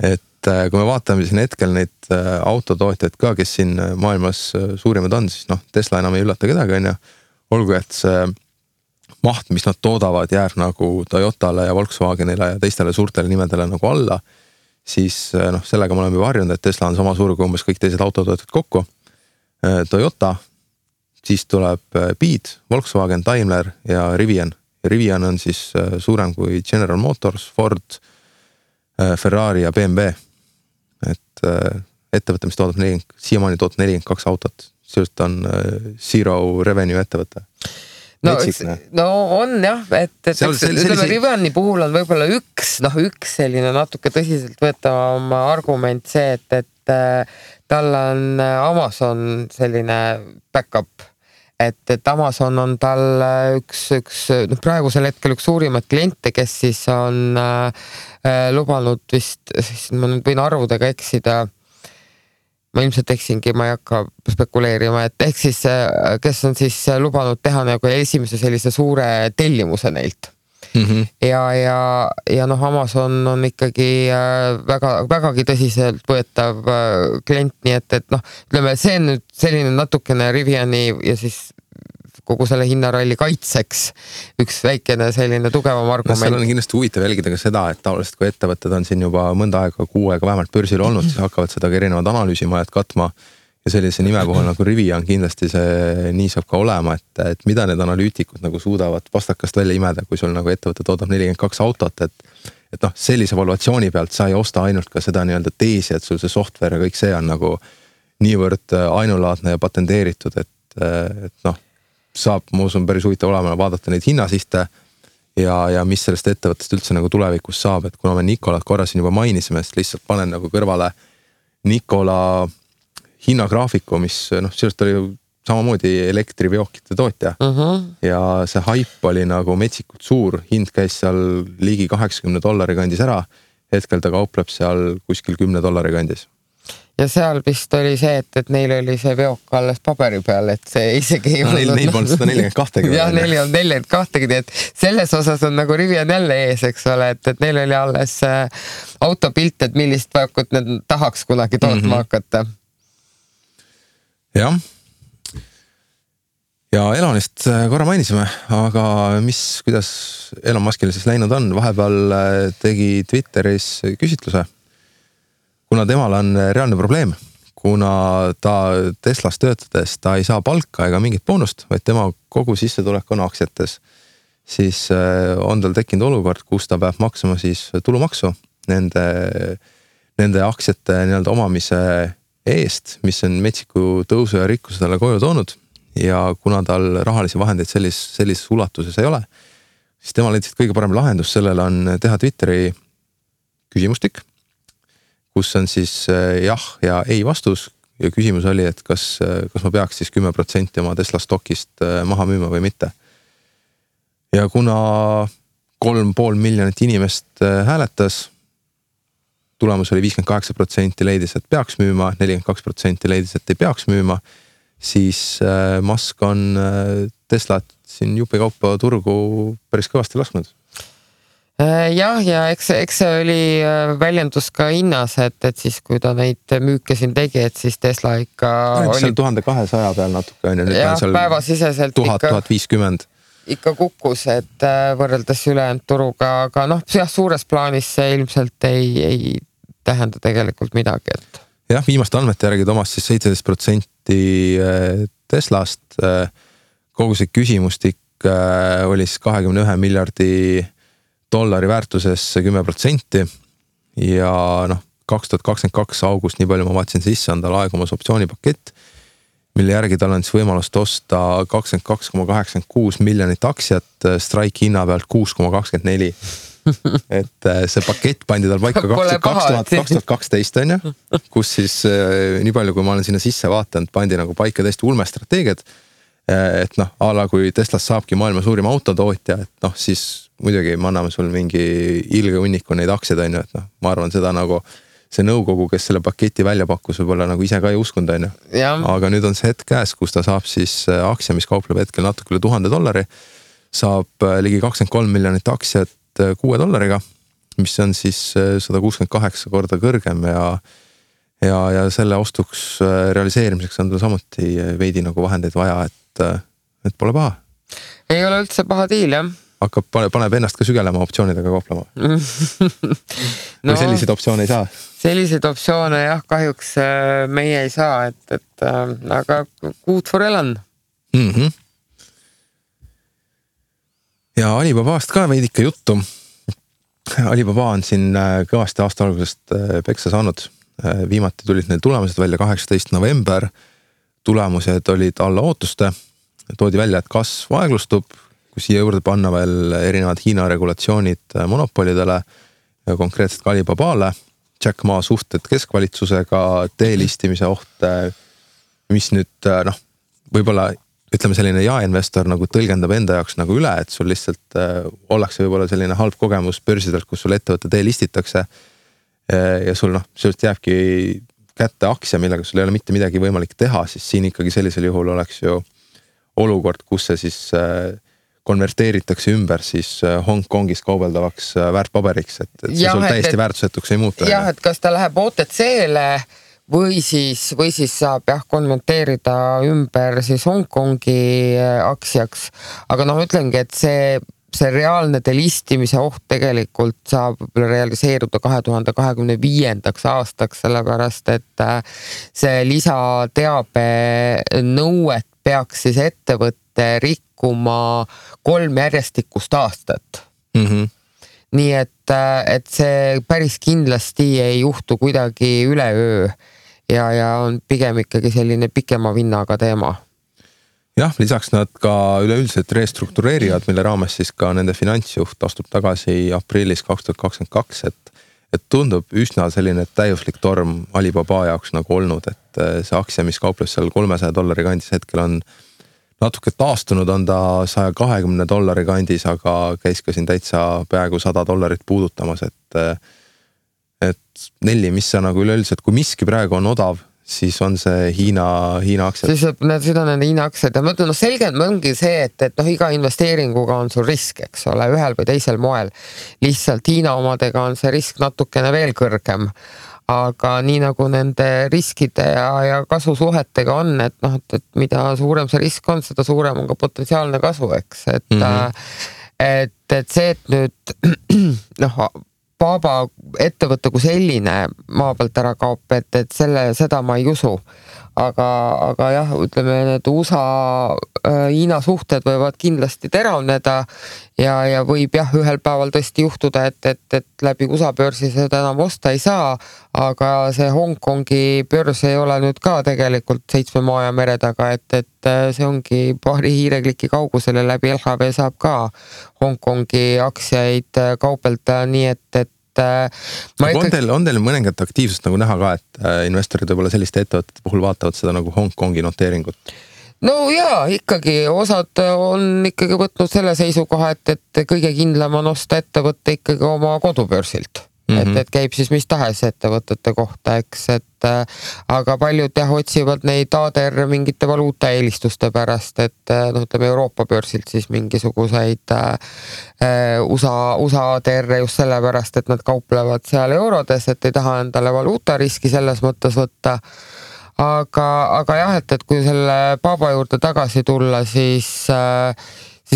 Et kui me vaatame siin hetkel neid autotootjaid ka, kes siin maailmas suurimad on, siis Tesla enam ei üllata kedagi, on ju. Olgu, et see maht, mis nad toodavad, jääb nagu Toyotale ja Volkswagenile ja teistele suurtele nimedele nagu alla, siis sellega me oleme juba harjunud, et Tesla on sama suur kui umbes kõik teised autotootjad kokku. Toyota, siis tuleb Beat, Volkswagen, Daimler ja Rivian. Ja Rivian on siis suurem kui General Motors, Ford, Ferrari ja BMW. Et ettevõte, mis toodab siiamaani 42 autot, sellest on zero revenue ettevõte. No on jah, et Riviani puhul on võib-olla üks selline natuke tõsiselt võetavam argument see, et tal on Amazon selline backup, et Amazon on tal üks praegusel hetkel üks suurimat kliente, kes siis on lubanud vist, siis ma nüüd võin arvudega eksida, ma ilmselt eksingi, ma ei hakka spekuleerima, et ehk siis, kes on siis lubanud teha nagu esimese sellise suure tellimuse neilt. Ja Amazon on ikkagi vägagi tõsiselt võetav klient, nii et ütleme, see on nüüd selline natukene Riviani ja siis kogu selle hinnaralli kaitseks üks väikene selline tugevam argument. Seal on kindlasti huvitav jälgida ka seda, et tavaliselt kui ettevõtted on siin juba mõnda aega, 6 aega vähemalt börsil olnud, siis hakkavad seda ka erinevad analüüsimajad katma ja sellise nime puhul nagu Rivian kindlasti see nii saab ka olema, et mida need analüütikud nagu suudavad vastakast välja imeda, kui sul nagu ettevõte toodab 42 autot, et sellise valuatsiooni pealt sa ei osta ainult ka seda nii-öelda teesi, et sul see software ja kõik see on nagu niivõrd ainulaadne ja patenteeritud, et saab, ma usun, päris huvitav olema vaadata neid hinnasihte ja mis sellest ettevõttest üldse nagu tulevikus saab, et kuna me Nikolat korra siin juba mainisime, siis lihtsalt panen nagu kõrvale Nikola hinnagraafiku, mis sellest oli samamoodi elektriveokite tootja ja see hype oli nagu metsikult suur, hind käis seal ligi $80 kandis ära, hetkel ta kaupleb seal kuskil $10 kandis. Ja seal vist oli see, et neil oli see veok alles paberi peal, et see isegi ei olnud. Neil polnud 142. Jah, neil on 42, et selles osas on nagu Rivian jälle ees, eks ole, et neil oli alles autopilt, et millist veokut need tahaks kunagi tootma hakata. Jah. Ja Elonist korra mainisime, aga kuidas Elon Muskil siis läinud on? Vahepeal tegi Twitteris küsitluse, kuna temal on reaalne probleem, kuna ta Teslas töötades, ta ei saa palka ega mingit boonust, vaid tema kogu sissetulek on aktsiates, siis on tal tekkinud olukord, kus ta peab maksama siis tulumaksu nende aktsiate nii-öelda omamise eest, mis on metsiku tõusu ja rikkuse talle koju toonud ja kuna tal rahalisi vahendeid sellises ulatuses ei ole, siis tema leidis, et kõige parem lahendus sellele on teha Twitteri küsimustik, kus on siis jah ja ei vastus ja küsimus oli, et kas ma peaks siis 10% oma Tesla stokist maha müüma või mitte. Ja kuna 3,5 miljonit inimest hääletas, tulemus oli 58% leidis, et peaks müüma, 42% leidis, et ei peaks müüma, siis Musk on Teslat siin jupikaupa turgu päris kõvasti lasknud. Jah, ja eks see oli väljendus ka hinnas, et siis kui ta neid müüke siin tegi, et siis Tesla ikka oli... Seal 1200 peal natuke on ja nüüd on seal päevasiseselt 1000-1050. Ikka kukkus, et võrreldes ülejäänud turuga, aga suures plaanis see ilmselt ei tähenda tegelikult midagi. Et... Jah, viimaste andmete järgi Tomas siis 17% Teslast, kogu see küsimustik oli siis 21 miljardi dollari väärtuses 10% ja 2022 august, nii palju ma vaatasin sisse, on tal aegumas optsioonipakett, mille järgi tal on siis võimalust osta 22,86 miljonit aktsiat strike hinna pealt 6,24. et see pakett pandi tal paika 2012 on ju, kus siis nii palju, kui ma olen sinna sisse vaatanud, pandi nagu paika täiesti ulmestrateegiad. Et noh, ala kui Teslas saabki maailma suurim autotootja, et noh, siis muidugi me anname sul mingi ilge hunniku neid aktsiaid on ju, et noh, ma arvan seda nagu see nõukogu, kes selle paketi välja pakkus, võib-olla nagu ise ka ei uskunud on ju. Aga nüüd on see hetk käes, kus ta saab siis aktsia, mis kaupleb hetkel natuke üle $1000, saab ligi 23 miljonit aktsiat $6, mis on siis 168 korda kõrgem ja selle ostuks realiseerimiseks on tal samuti veidi nagu vahendeid vaja, et pole paha. Ei ole üldse paha diil, jah. Paneb ennast ka sügelema optsioonidega kauplema. Või selliseid optsioone ei saa? Selliseid optsioone jah, kahjuks meie ei saa, aga good for Elon. Ja Alibabast ka veidike juttu. Alibaba on siin kõvasti aasta algusest peksa saanud. Viimati tulid need tulemused välja 18. november. Tulemused olid alla ootuste. Toodi välja, et kasv aeglustub, kui siia juurde panna veel erinevad Hiina regulatsioonid monopolidele ja konkreetselt ka Alibabale. Jack Ma suhted keskvalitsusega, teelistimise oht, mis nüüd võib-olla ütleme selline jaeinvestor nagu tõlgendab enda jaoks nagu üle, et sul lihtsalt ollakse võib-olla selline halb kogemus börsidelt, kus sul ettevõtte teelistitakse ja sul sellest jääbki kätte aktsia, millega sul ei ole mitte midagi võimalik teha, siis siin ikkagi sellisel juhul oleks ju olukord, kus see siis konverteeritakse ümber siis Hongkongis kaubeldavaks väärtpaberiks, et see sul täiesti väärtusetuks ei muutu. Jah, et kas ta läheb OTC-le või siis saab konverteerida ümber siis Hongkongi aktsiaks, aga ütlengi, et see reaalne delistimise oht tegelikult saab realiseeruda 2025. aastaks, sellepärast et see lisateabe nõuet peaks siis ettevõtte rikkuma 3 järjestikust aastat. Nii et see päris kindlasti ei juhtu kuidagi üleöö ja on pigem ikkagi selline pikema vinnaga teema. Jah, lisaks nad ka üleüldiselt restruktureerivad, mille raames siis ka nende finantsjuht astub tagasi aprillis 2022, et tundub üsna selline täiuslik torm Alibaba jaoks nagu olnud, et see aktsia, mis kaupleb seal $300 kandis hetkel on natuke taastunud, on ta $120 kandis, aga käis ka siin täitsa peaaegu $100 puudutamas, et Nelli, mis sa nagu üleüldiselt, kui miski praegu on odav, siis on see Hiina aktsiad. Siis seda on nende Hiina aktsiad ja ma ütlen, selgelt ongi see, et iga investeeringuga on sul risk, eks ole, ühel või teisel moel. Lihtsalt Hiina omadega on see risk natukene veel kõrgem. Aga nii nagu nende riskide ja kasu suhetega on, et mida suurem see risk on, seda suurem on ka potentsiaalne kasu, eks. Et see, et nüüd Baba ettevõtte kui selline maa pealt ära kaob, et seda ma ei usu. Aga jah, ütleme, need USA-Hiina suhted võivad kindlasti teravneda ja võib jah, ühel päeval tõesti juhtuda, et läbi USA börsi seda enam osta ei saa, aga see Hongkongi börs ei ole nüüd ka tegelikult 7 maa ja mere taga, et see ongi paari hiirekliki kaugusel ja läbi LHV saab ka Hongkongi aktsiaid kaupelda, nii et on teil mõningat aktiivsust nagu näha ka, et investorid võib-olla selliste ettevõtete puhul vaatavad seda nagu Hongkongi noteeringut? No jaa, ikkagi osad on ikkagi võtnud selle seisukoha, et kõige kindlam on osta ettevõtte ikkagi oma kodubörsilt. Et käib siis mis tahes ettevõtete kohta, eks, aga paljud otsivad neid ADR mingite valuuta eelistuste pärast, et ütleme Euroopa börsilt siis mingisuguseid USA ADR just sellepärast, et nad kauplevad seal eurodes, et ei taha endale valuuta riski selles mõttes võtta. Aga jah, et kui selle Baba juurde tagasi tulla, siis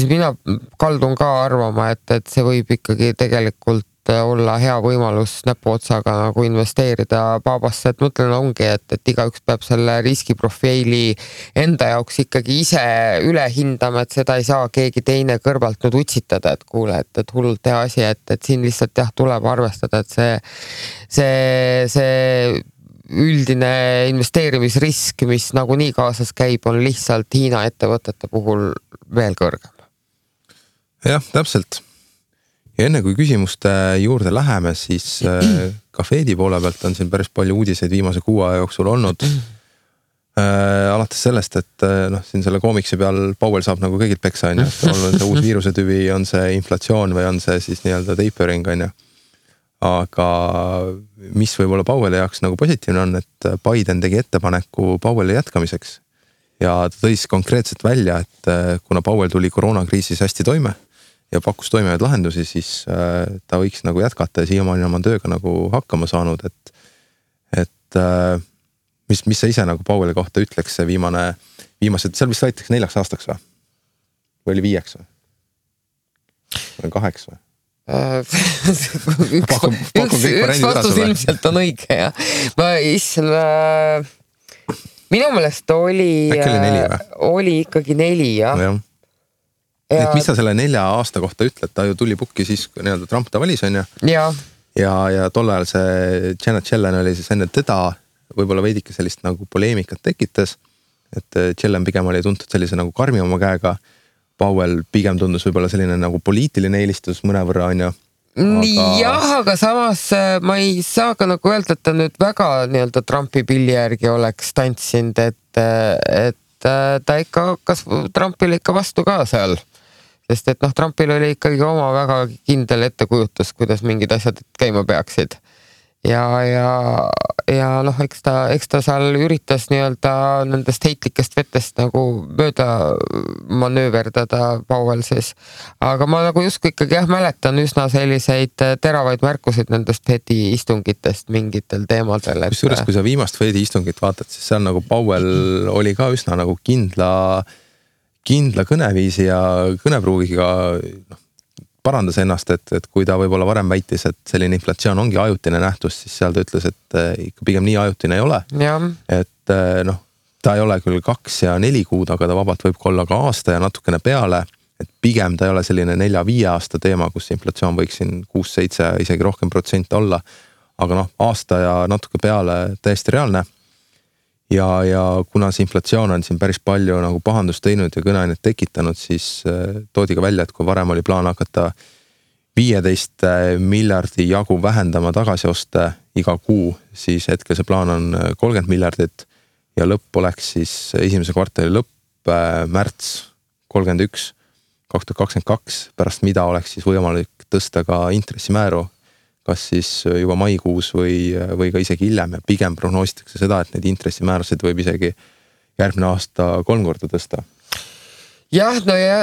mina kaldun ka arvama, et see võib ikkagi tegelikult olla hea võimalus näpuotsaga nagu investeerida Babasse, et mõtlen ongi, et igaüks peab selle riskiprofiili enda jaoks ikkagi ise üle hindama, et seda ei saa keegi teine kõrvalt nüüd utsitada, et kuule, et hullult hea asi, et siin lihtsalt jah, tuleb arvestada, et see üldine investeerimisrisk, mis nagunii kaasas käib, on lihtsalt Hiina ettevõtete puhul veel kõrgem. Jah, täpselt. Ja enne kui küsimuste juurde läheme, siis ka Fedi poole pealt on siin päris palju uudiseid viimase 6 aja jooksul olnud. Alates sellest, et siin selle koomiksi peal Powell saab nagu kõigilt peksa, on ju, et on see uus viirusetüvi, on see inflatsioon või on see siis nii-öelda tapering, on ju. Aga mis võib-olla Powelli jaoks nagu positiivne on, et Biden tegi ettepaneku Powelli jätkamiseks ja ta tõi konkreetselt välja, et kuna Powell tuli koroonakriisis hästi toime ja pakkus toimivaid lahendusi, siis ta võiks nagu jätkata ja siiamaani oma tööga nagu hakkama saanud, et mis sa ise nagu Powelli kohta ütleks see viimased, seal vist võetakse 4 aastaks või? Või oli 5 või? Või 8 või? Üks vastus ilmselt on õige, jah. Minu meelest oli ikkagi 4, jah. Et mis sa selle 4 aasta kohta ütled, ta ju tuli pukki siis, kui nii-öelda Trump ta valis, on ju. Ja tol ajal see Janet Yellen oli siis enne teda võib-olla veidike sellist nagu poleemikat tekitas, et Yellen pigem oli tuntud sellise nagu karmi oma käega, Powell pigem tundus võib-olla selline nagu poliitiline eelistus mõnevõrra, on ju. Jah, aga samas ma ei saa ka nagu öelda, et ta nüüd väga nii-öelda Trumpi pilli järgi oleks tantsinud, et ta ikka hakkas Trumpile ikka vastu ka seal. Sest et Trumpil oli ikkagi oma väga kindel ettekujutus, kuidas mingid asjad käima peaksid. Ja eks ta seal üritas nii-öelda nendest heitlikest vetest nagu mööda manööverdada Powell siis. Aga ma nagu justkui ikkagi mäletan üsna selliseid teravaid märkusid nendest Fedi istungitest mingitel teemadel. Kusjuures, kui sa viimast Fedi istungit vaatad, siis seal nagu Powell oli ka üsna nagu kindla kõneviisi ja kõnepruugiga parandas ennast, et kui ta võib-olla varem väitis, et selline inflatsioon ongi ajutine nähtus, siis seal ta ütles, et ikka pigem nii ajutine ei ole. Et ta ei ole küll 2 ja 4 kuud, aga ta vabalt võib olla ka aasta ja natukene peale, et pigem ta ei ole selline 4-5 aasta teema, kus inflatsioon võiks siin 6-7 isegi rohkem protsent olla, aga aasta ja natuke peale täiesti reaalne. Ja kuna see inflatsioon on siin päris palju nagu pahandust teinud ja kõneainet tekitanud, siis toodi ka välja, et kui varem oli plaan hakata 15 miljardi jagu vähendama tagasioste iga kuu, siis hetkel see plaan on 30 miljardit ja lõpp oleks siis esimese kvartali lõpp märts 31 2022, pärast mida oleks siis võimalik tõsta ka intressimääru, kas siis juba maikuus või ka isegi hiljem ja pigem prognoositakse seda, et need intressimäärasid võib isegi järgmine aasta 3 korda tõsta. Jah,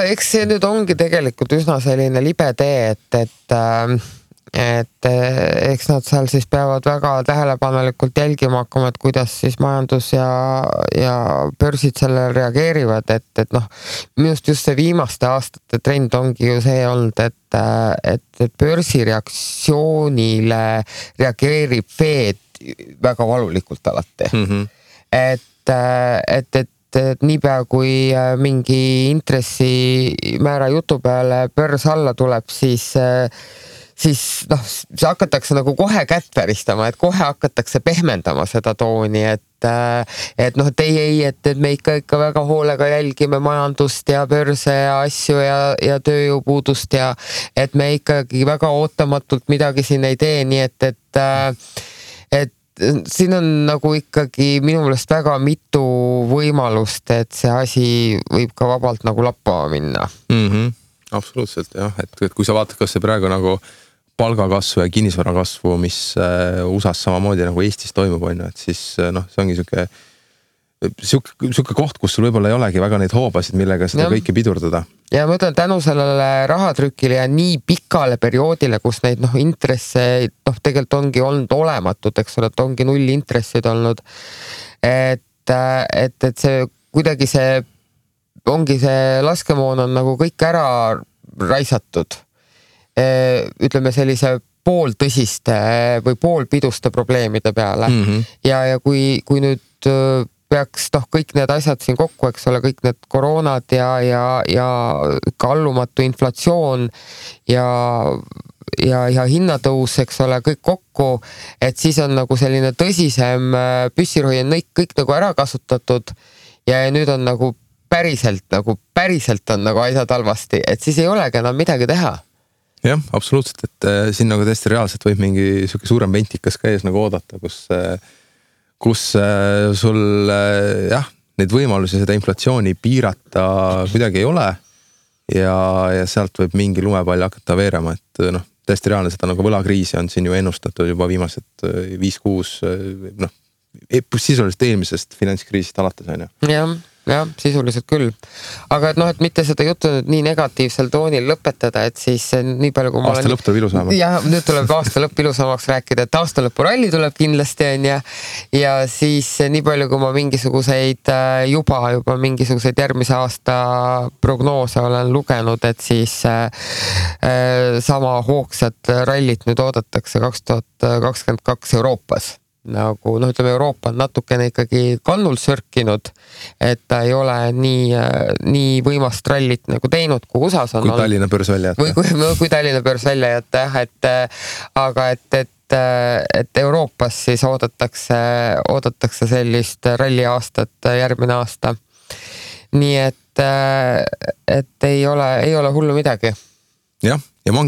eks see nüüd ongi tegelikult üsna selline libe tee, et eks nad seal siis peavad väga tähelepanelikult jälgima hakkama, et kuidas siis majandus ja börsid sellele reageerivad, et minust just see viimaste aastate trend ongi ju see olnud, et börsi reaktsioonile reageerib Fed väga valulikult alati. Et niipea kui mingi intressimäära jutu peale börs alla tuleb, siis see hakatakse nagu kohe kätt väristama, et kohe hakatakse pehmendama seda tooni, et me ikka väga hoolega jälgime majandust ja börse ja asju ja tööjõupuudust ja et me ikkagi väga ootamatult midagi siin ei tee, nii et siin on nagu ikkagi minu meelest väga mitu võimalust, et see asi võib ka vabalt nagu lappama minna. Absoluutselt jah, et kui sa vaatad, kas see praegu nagu palgakasvu ja kinnisvarakasvu, mis USAs samamoodi nagu Eestis toimub, on ju, et siis see ongi siuke koht, kus sul võib-olla ei olegi väga neid hoobasid, millega seda kõike pidurdada. Ja ma ütlen, tänu sellele rahatrükile ja nii pikale perioodile, kus neid intresse tegelikult ongi olnud olematud, eks ole, et ongi 0 intressid olnud, et see kuidagi ongi see laskemoon on nagu kõik ära raisatud. Ütleme sellise pooltõsiste või poolpiduste probleemide peale. Ja kui nüüd peaks kõik need asjad siin kokku, eks ole, kõik need koroonad ja kallumatu inflatsioon ja hinnatõus, eks ole, kõik kokku, et siis on nagu selline tõsisem püssirohi on kõik nagu ära kasutatud ja nüüd on nagu päriselt on nagu asjad halvasti, et siis ei olegi enam midagi teha. Jah, absoluutselt, et siin nagu tõesti reaalselt võib mingi siuke suurem ventikas ka ees nagu oodata, kus sul jah, neid võimalusi seda inflatsiooni piirata kuidagi ei ole ja sealt võib mingi lumepall hakata veerema, et noh, tõesti reaalne seda nagu võlakriisi on siin ju ennustatud juba viimased 5-6 noh, sisuliselt eelmisest finantskriisist alates on ju. jah, sisuliselt küll. Aga et noh, et mitte seda juttu nüüd nii negatiivsel toonil lõpetada, et siis nii palju kui aasta lõpp tuleb ilusamaks. Ja nüüd tuleb aasta lõpp ilusamaks rääkida, et aasta lõpu ralli tuleb kindlasti on ja siis nii palju kui ma mingisuguseid juba mingisuguseid järgmise aasta prognoose olen lugenud, et siis sama hoogsat rallit nüüd oodatakse 2022 Euroopas. Nagu noh, ütleme Euroopa on natukene ikkagi kannul sörkinud, et ta ei ole nii võimast rallit nagu teinud, kui USAs on. Kui Tallinna börs välja jätta. Kui Tallinna börs välja jätta, aga et Euroopas siis oodatakse sellist ralli aastat järgmine aasta. Nii et ei ole hullu midagi. Jah, ja ma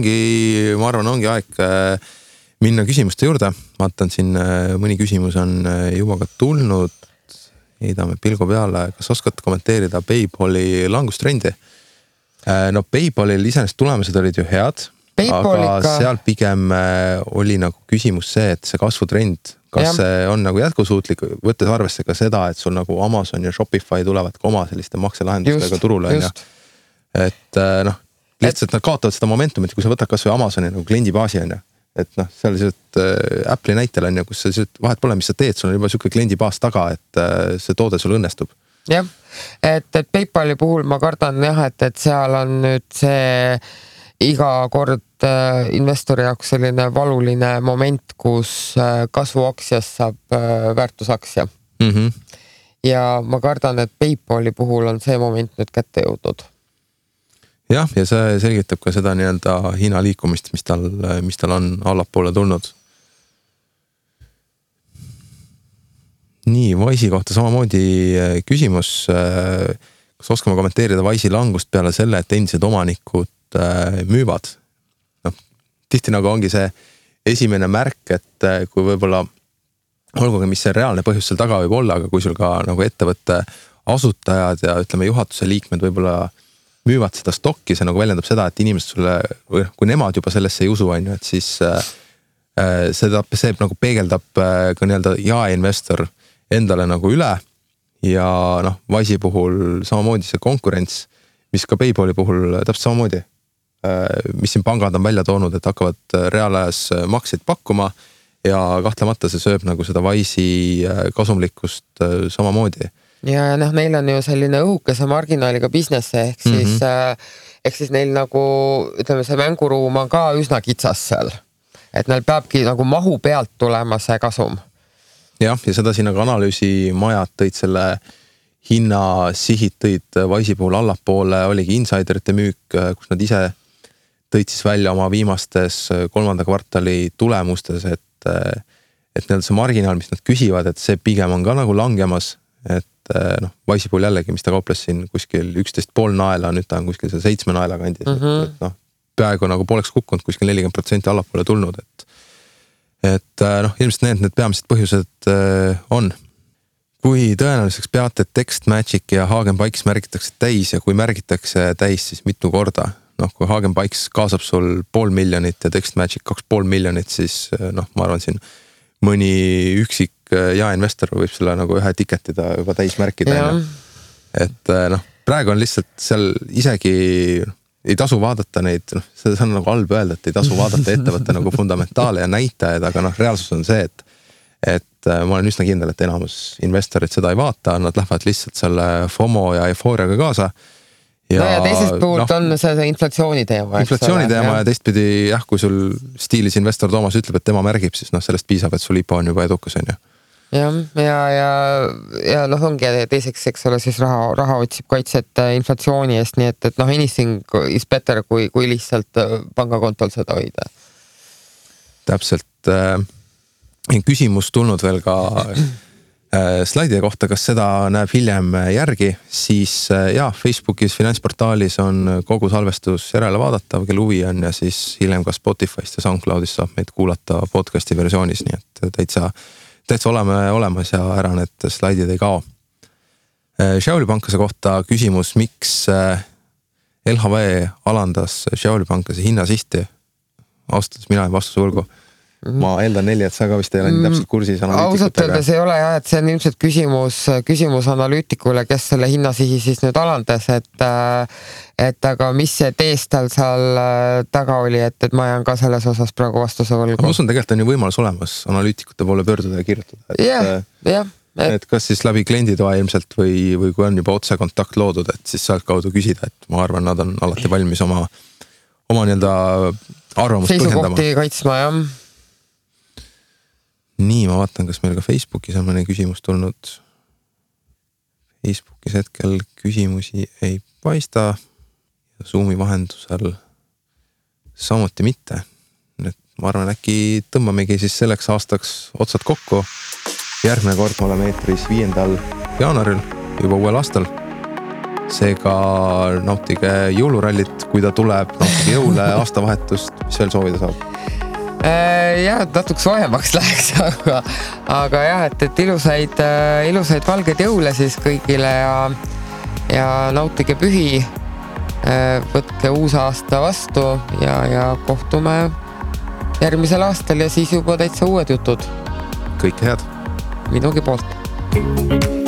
arvan, ongi aeg minna küsimuste juurde. Vaatan siin mõni küsimus on juba ka tulnud. Heidame pilgu peale. Kas oskad kommenteerida PayPali langustrendi? No PayPalil iseenesest tulemused olid ju head, aga seal pigem oli nagu küsimus see, et see kasvutrend, kas see on nagu jätkusuutlik, võttes arvesse ka seda, et sul nagu Amazon ja Shopify tulevad ka oma selliste makselahendustega turule. Et noh, lihtsalt nad kaotavad seda momentumit, kui sa võtad kas või Amazoni nagu kliendibaasi on ju. Et noh, seal Apple'i näitel on ju, kus sa vahet pole, mis sa teed, sul on juba siuke kliendibaas taga, et see toode sul õnnestub. Jah, et PayPali puhul ma kardan jah, et seal on nüüd see iga kord investori jaoks selline valuline moment, kus kasvuaktsias saab väärtusaktsia. Ja ma kardan, et PayPali puhul on see moment nüüd kätte jõudnud. Jah, ja see selgitab ka seda nii-öelda hinna liikumist, mis tal on allapoole tulnud. Nii, Wise'i kohta samamoodi küsimus. Kas oskame kommenteerida Wise'i langust peale selle, et endised omanikud müüvad? No, tihti nagu ongi see esimene märk, et kui võib-olla olgugi, mis see reaalne põhjus seal taga võib olla, aga kui sul ka nagu ettevõtte asutajad ja ütleme juhatuse liikmed võib-olla müüvad seda stokki, see nagu väljendab seda, et inimesed sulle, või kui nemad juba sellesse ei usu, on ju, et siis see nagu peegeldab ka nii-öelda jaeinvestor endale nagu üle ja noh, Wise'i puhul samamoodi see konkurents, mis ka PayPali puhul täpselt samamoodi, mis siin pangad on välja toonud, et hakkavad reaalajas makseid pakkuma ja kahtlemata see sööb nagu seda Wise'i kasumlikkust samamoodi. Ja noh, neil on ju selline õhukese marginaaliga business, ehk siis neil nagu, ütleme, see mänguruum on ka üsna kitsas seal. Et neil peabki nagu mahu pealt tulema see kasum. Jah, ja seda siin nagu analüüsimajad tõid selle hinna sihid tõid Wise'i puhul allapoole, oligi insiderite müük, kus nad ise tõid siis välja oma viimastes 3. kvartali tulemustes, et neil see marginaal, mis nad küsivad, et see pigem on ka nagu langemas, et noh, Wise'i puhul jällegi, mis ta kauples siin kuskil 11,5 naela, nüüd ta on kuskil 7 naela kandis, et noh, peaaegu nagu pooleks kukkunud, kuskil 40% allapoole tulnud, et noh, ilmselt need peamised põhjused on. Kui tõenäoliseks peate, et TextMagic ja Hagenbikes märgitakse täis ja kui märgitakse täis, siis mitu korda? Noh, kui Hagenbikes kaasab sul 500 000 ja TextMagic 2,5 miljonit, siis noh, ma arvan siin mõni üksik jaeinvestor võib selle nagu ühe tiketida juba täis märkida. Et noh, praegu on lihtsalt seal isegi ei tasu vaadata neid, noh, see on nagu halb öelda, et ei tasu vaadata ettevõtte nagu fundamentaale ja näitajaid, aga noh, reaalsus on see, et ma olen üsna kindel, et enamus investorid seda ei vaata, nad lähevad lihtsalt selle FOMO ja eufooriaga kaasa. Ja teisest puhult on see inflatsiooni teema. Inflatsiooni teema ja teistpidi jah, kui sul stiilis investor Toomas ütleb, et tema märgib, siis noh, sellest piisab, et sul IPO on juba edukas, on ju. Ja noh, ongi teiseks, eks ole, siis raha otsib kaitset inflatsiooni eest, nii et noh, anything is better, kui lihtsalt pangakontol seda hoida. Täpselt. Küsimus tulnud veel ka slaidide kohta, kas seda näeb hiljem järgi, siis Facebookis finantsportaalis on kogu salvestus järele vaadatav, kel huvi on ja siis hiljem ka Spotify'st ja SoundCloud'ist saab meid kuulata podcasti versioonis, nii et täitsa oleme olemas ja ära need slaidid ei kao. Xiaoli pankase kohta küsimus, miks LHV alandas Xiaoli pankase hinnasisti? Ausalt, mina ei vastuse võlgu. Ma eeldan 4, et sa ka vist ei ole nii täpselt kursis analüütikutega. Ausalt öeldes ei ole jah, et see on ilmselt küsimus analüütikule, kes selle hinnasihi siis nüüd alandas, et aga mis see teest tal seal taga oli, et ma jään ka selles osas praegu vastuse võlgu. Ma usun, tegelikult on ju võimalus olemas analüütikute poole pöörduda ja kirjutada. Jah. Et kas siis läbi klienditoa ilmselt või kui on juba otse kontakt loodud, et siis sealt kaudu küsida, et ma arvan, nad on alati valmis oma nii-öelda arvamust põhjendama. Seisukohti kaitsma, jah. Nii, ma vaatan, kas meil ka Facebookis on mõne küsimus tulnud. Facebookis hetkel küsimusi ei paista. Zoomi vahendusel samuti mitte. Nüüd ma arvan, äkki tõmbamegi siis selleks aastaks otsad kokku. Järgmine kord me oleme eetris 5. jaanuaril, juba uuel aastal. Seega nautige jõulurallit, kui ta tuleb, nautige jõule, aastavahetust, mis veel soovida saab? Jah, natuke soojemaks läheks, aga jah, et ilusaid valgeid jõule siis kõigile ja nautige pühi, võtke uus aasta vastu ja kohtume järgmisel aastal ja siis juba täitsa uued jutud. Kõike head! Minugi poolt!